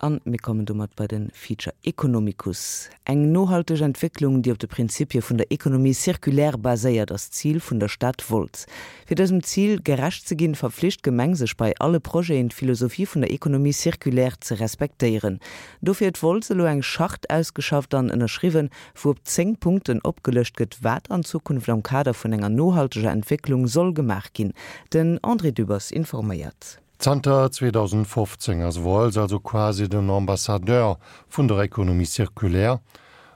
An mir kommen domat bei de Feature Economicus. Eng nohalteg Entwécklung, déi op de Prinzipie vun der Économie circulaire baséiert, ass d'Zil vun der Stad Wolz. Fir dësem Zil gerecht ze ginn, verpflicht d'Gemeng sech bei alle Projeten, d'Philosophie vun der Économie circulaire ze respektéieren. Dofir huet Wolz elo eng Charte ausgeschafft an ënnerschriwwen, wou op 10 Punkten opgelëscht gëtt, wat an Zukunft am Kader vun enger nohalteger Entwécklung soll gemaach ginn. Den André Dübbers informéiert. Zanter 2015 ass Wooltz also quasi den Ambassadeur vun der Économie circulaire,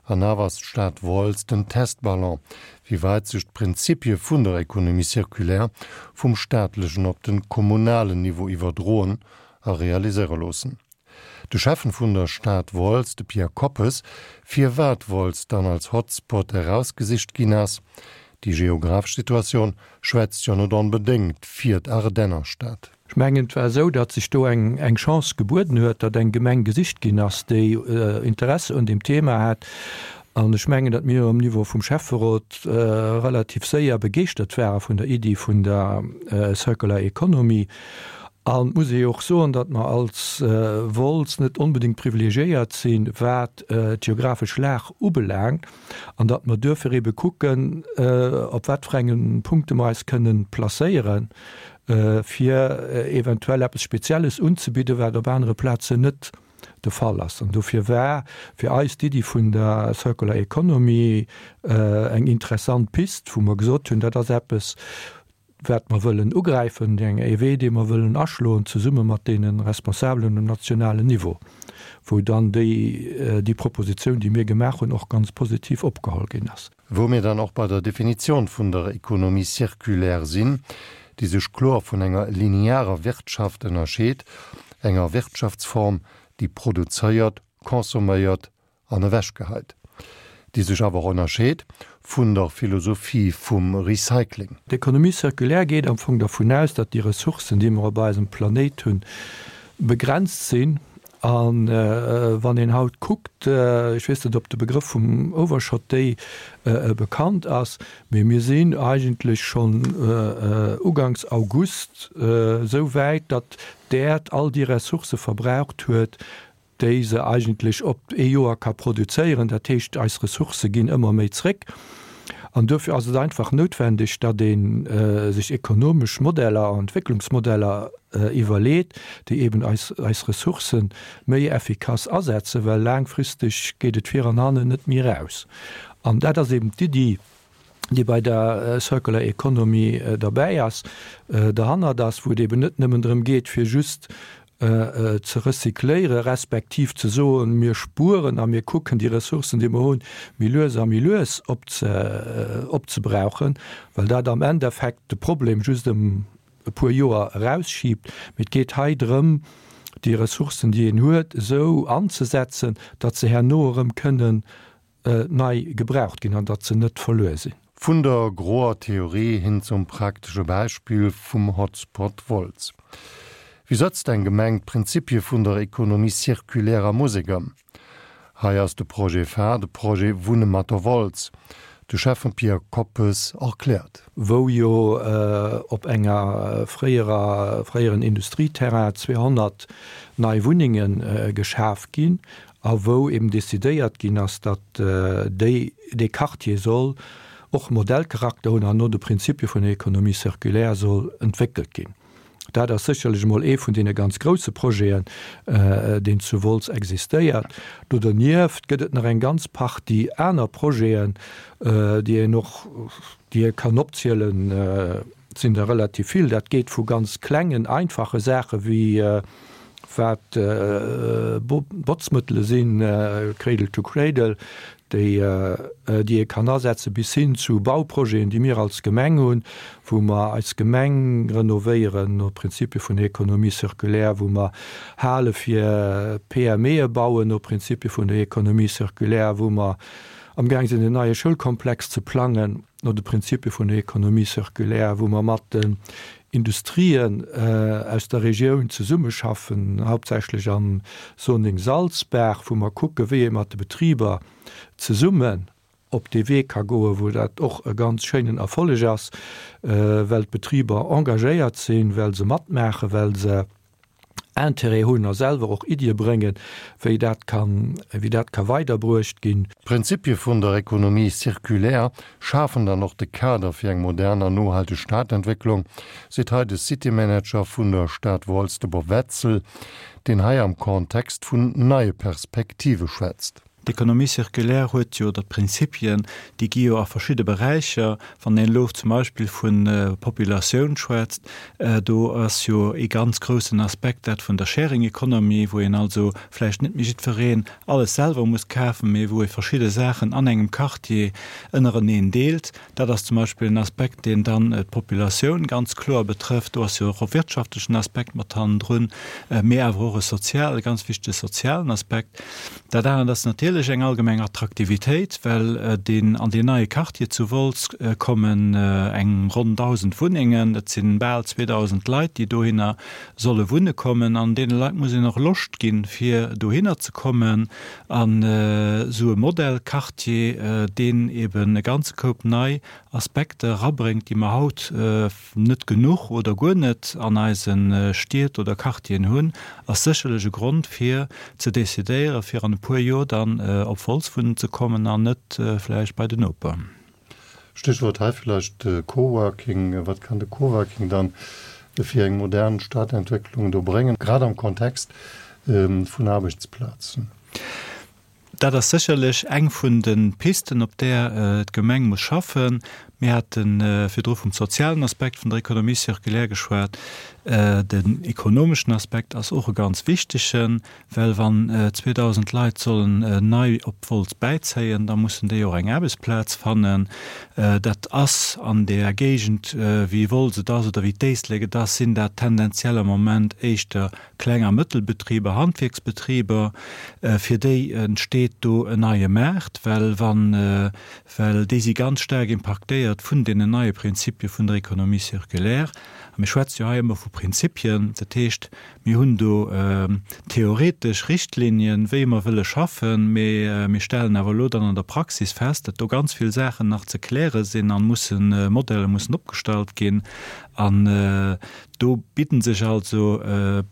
an awer ass d'Stad Wooltz den Testballon, wéi weit sech d'Prinzipie vun der Économie circulaire vum staatlechen op den kommunalen Niveau iwwerdroen a realiséiere loossen. De Schäffen vun der Stad Wolz, de Pierre Koppes, firwat Wolz dann als Hotspot erausgesicht ginn ass, Déi geographesch Situatioun schwätzt jo net onbedéngt fir d'Ardennerstad. Ech mengen, et war esou, datt sech do eng Chance gebueden huet, datt eng Gemeng gesicht ginn ass, déi Interesse un deem Thema hat. An ech mengen, datt mir um Niveau vum Schäfferot relativ séier begeeschtert ware vun der Iddi vun der Circular Economy. An et muss ee jo och soen, datt mer als Wolz net onbedéngt privilegiéiert sinn, wat d'geographesch Lag ubelaangt, an datt mer duerfir ebe kucken, op wat fir enge Punkte mer eis kënnen placéieren, fir eventuell eppes Spezielles unzebidden, wat op anere Plazen net de Fall ass. An dofir war fir eis d'Iddi vun der Circular Economy eng interessant Pist, wou mer gesot hunn, dat ass eppes, wat mer wëllen ugräifen, ee Wee, dee mer wëllen aschloen, zesumme mat deene Responsabelen um nationalen Niveau, wou dann déi, déi Propositioun, déi mir gemaach hunn, och ganz positiv opgeholl ginn ass. Wou mir dann och bei der Definition vun der Économie circulaire sinn, déi sech kloer vun enger linearer Wirtschaft ënnerscheet, enger Wirtschaftsform, déi produzéiert, consomméiert an ewechgeheit, déi sech awer och ënnerscheet vun der Philosophie vum Recycling. D'Économie circulaire geet am Fong dervun aus, datt déi Ressourcen, déi mer op eisem Planéit hunn, begrenzt sinn. A wann een haut kuckt, ech weess net, ob de Begrëff vum Overshot Day bekannt ass, mee mir sinn eigentlech schonn uganks August esou wäit, datt d'Äerd all déi Ressourcë verbraucht huet, déi se eigentlech op ee Joer ka produzéieren. Dat heescht, eis Ressourcë ginn ëmmer méi zréck. An duerfir ass et einfach noutwendeg, datt ee sech ekonomesch Modeller an Entwécklungsmodeller iwwerleet, déi eben eis eis Ressourcë méi effikass asetzen, well laangfristeg geet et vir an hannen net méi eraus. An dat ass eben d'Iddi, déi bei der Circular Economy derbäi ass, derhannert ass, wou et eben net nëmmen drëm geet, fir just ze recycléiere respektiv ze soen, mir spueren a mir kucken déi Ressourcen, déi mer hunn, méi lues a méi lues opzebrauchen, well dat am Endeffekt de Problem just ëm e puer Joer erausschiebt. Mee et geet hei drëm, déi Ressourcen, déi een huet, esou anzesetzen, datt se herno erëm kënnen nei gebraucht ginn an datt se net verluer sinn. Vun der groer Theorie hin zum praktesche Beispill vum Hotspot Wolz. Wéi sëtzt eng Gemeng d'Prinzipie vun der Économie circulaire a Musek ëm? Hei ass de Projet phare, de Projet Wunne mat der Wolz. De Schäffen Pierre Koppes erkläert. Wou jo op enger fréierer, fréieren Industrieterrain 200 nei Wunnenge geschaf ginn a wou eben decidéiert ginn ass, datt déi, dee Quartier soll och Modellcharakter hunn an no de Prinzipie vun der Économie circulaire soll entwéckelt ginn. Dat ass sécherlech emol ee vun deene ganz grouse Projeten, deen zu Wolz existéiert. Do dernieft gëtt et nach eng ganz Partie aner Projeten, déi een och, déi ee kann opzielen. Et sinn der relativ vill. Dat geet vu ganz klengen, einfache Saache wéi wat Botzmëttele sinn, Cradle to Cradle, déi déi ee kann asetzen, bis hin zu Bauprojeten, déi mir als Gemeng hunn, wou mer eis Gemeng renovéieren no Prinzipie vun der Économie circulaire, wou mer Hale fir PMEe bauen no Prinzipie vun der Économie circulaire, wou mer amgaang sinn en neie Schoulkomplex ze plangen. no de Prinzipie vun der Économie circulaire, wou mer mat den Industrien aus der Regioun zesummeschaffen, hauptsächlech am Zoning Salzbaach, wou mer kucken, wéi ee mat de Betriber zesummen op dee Wee ka goen, wou dat och e ganz schéinen Erfolleg ass, well d'Betriber engagéiert sinn, well se matmaachen, well se. Intérêt hunn a selwer och Iddie bréngen, wéi dat kann, wéi dat ka weiderbruecht ginn. D'Prinzipie vun der Économie circulaire schafen dann och de Kader fir eng modern an nohalteg Stadentwécklung, seet hei de City Manager vun der Stad Wolz, de Bob Wetzel, deen hei am Kontext vun neie Perspektive schwätzt. D'Économie circulaire huet jo, oder d'Prinzipien, déi gi jo a verschidde Beräicher, wann een elo zum Beispill vu Populatioun schwätzt, do ass jo ee ganz groussen Aspekt dat vun der Sharing Economy, wou een also vläicht net méi jiddwereen alles selwer muss kafen, mee wou ee verschidde Saachen an engem Quartier ënnereneen deelt. Dat ass zum Beispill en Aspekt, deen dann d'Populatioun ganz kloer betrëfft. Do ass jo och e wirtschaftlechen Aspekt mat hannendrun, mee awer och e sozial, e ganz wichtege sozialen Aspekt. Dat anert ass natierlech eng allgemeng Attraktivitéit, well deen, an deen neie Quartier zu Wolz kommen eng ronn 1.000 Wunnengen. Dat si bal 2.000 Leit, déi dohinner solle wunne kommen. An deene Leit muss een och Loscht ginn, fir dohinner ze kommen. An esou e Modellquartier, deen eben e ganze Koup nei Aspekter erabréngt, déi mer haut net genuch oder guer net an eise Stied oder Quartieren hunn, ass sécherlech e Grond fir ze decidéieren, fir an e puer Joer dann op Wolz wunnen ze kommen an net vläicht bei den Noper. Stichwort hei vläicht de Coworking. Wat kann de Coworking dann fir eng modern Stadentwécklung do bréngen, grad am Kontext vun Aarbechtsplazen? Dat ass sécherlech eng vun de Pisten, op där d'Gemeng muss schaffen. Mir hate virdru vum sozialen Aspekt vun der Économie circulaire geschwat. Den ekonomeschen Aspekt ass och e ganz wichtegen. Well wann 2.000 Leit sollen nei op Wolz bäizéien, da mussen déi och eng Aarbechtsplaz fannen. Dat ass an där Géigend, wéi Wolz et ass oder wéi d'Éislek et ass, sinn dat tendenziell am Moment éischter Kleng a Mëttelbetriber, Handwierksbetriber. Fir déi entsteet do en neie Maart, well wann, well déi si ganz staark impaktéiert vun deenen neie Prinzipie vun der Économie circulaire. A mir schwätze jo hei ëmmer vu Prinzipien, dat heescht, Mir hunn do theoretesch Richtlinien, wéi mer wëlle schaffen, mee mir stellen awer elo dann an der Praxis fest, datt do ganz vill Saachen nach ze kläre sinn a mussen, Modeller mussen opgestallt ginn. An do bidden sech also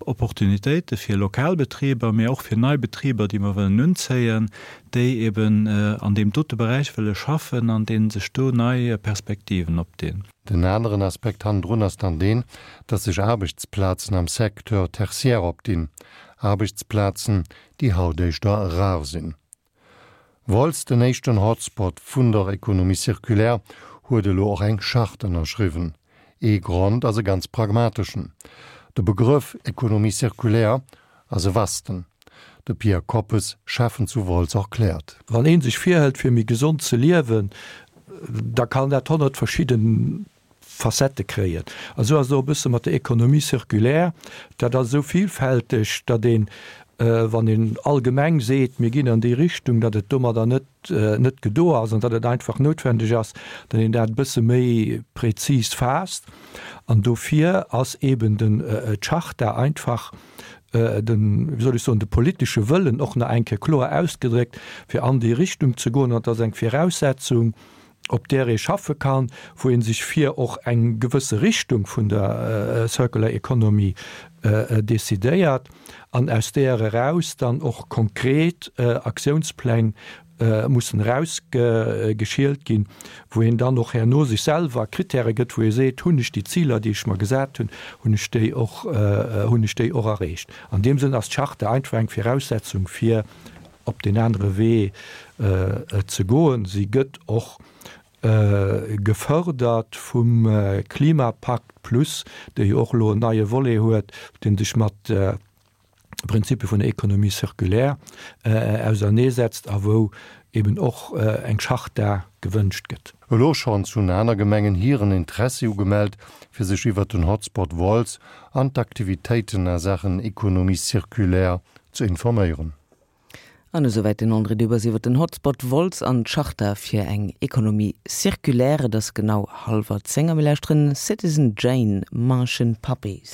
Opportunitéite fir lokal Betriber, mee och fir nei Betriber, déi mer wëllen unzéien, déi eben an deem dote Beräich wëlle schaffen an deene sech do nei Perspektiven opdinn. Den aneren Aspekt hannendrun ass dann deen, dass sech Aarbechtsplazen am Secteur tertiaire opdinn, Aarbechtsplazen, déi haut éischter rar sinn. Wolz, den éischten Hotspot vun der Économie circulaire, huet elo och eng Charte ënnerschriwwen. Ee Grond ass e ganz pragmateschen, De Begrëff Économie circulaire ass e vasten. De Pierre Koppes, Schäffen zu Wolz, erkläert. Wann ee sech virhëlt fir méi gesond ze liewen, da kann dat 100 verschidde Facettë kréien. A sou ass et och e bësse mat der Économie circulaire. Dat ass esou villfälteg, datt een, wann een allgemeng seet, mir ginn an déi Richtung, datt et domadder net net gedo ass an datt et einfach noutwendeg ass, datt een dat e bësse méi prezis faasst. An dofir ass eeben den d'Charta einfach den, wéi soll ech soen, de politesche Wëllen och nach eng Kéier kloer ausgedréckt, fir an déi Richtung ze goen. An et ass eng Viraussetzung, op där ee schaffe kann, wou ee sech fir och eng gewësse Richtung vun der Circular Economy decidéiert an aus där eraus dann och konkret Aktiounspläng mussen erausgeschielt ginn, wou een dann och herno sech selwer Kritäre gëtt, wou ee seet, hunn ech déi Ziler, déi ech mer gesat hunn, hunn ech déi och, hunn ech déi och erreecht. An deem Sënn ass d'Charte einfach eng Viraussetzung, fir op deen anere Wee ze goen. Si gëtt och gefërdert vum Klimapakt plus, dee jo och elo en neie Volet huet, dee sech mat Prinzipie vun der Économie circulaire auserneesetzt a wou eben och eng Charta gewënscht gëtt. Elo schonns hunn aner Gemengen hiren Interessi ugemellt, fir sech iwwert den Hotspot Wolz an d'Aktivitéiten a Saachen Économie circulaire ze informéieren. An esouwäit den André Dübbers iwwer den Hotspot Wolz an d'Charta fir eng Économie circulaire. Et ass genau hallwer 10 a mir lauschteren Citizen Jane, Martian Puppies.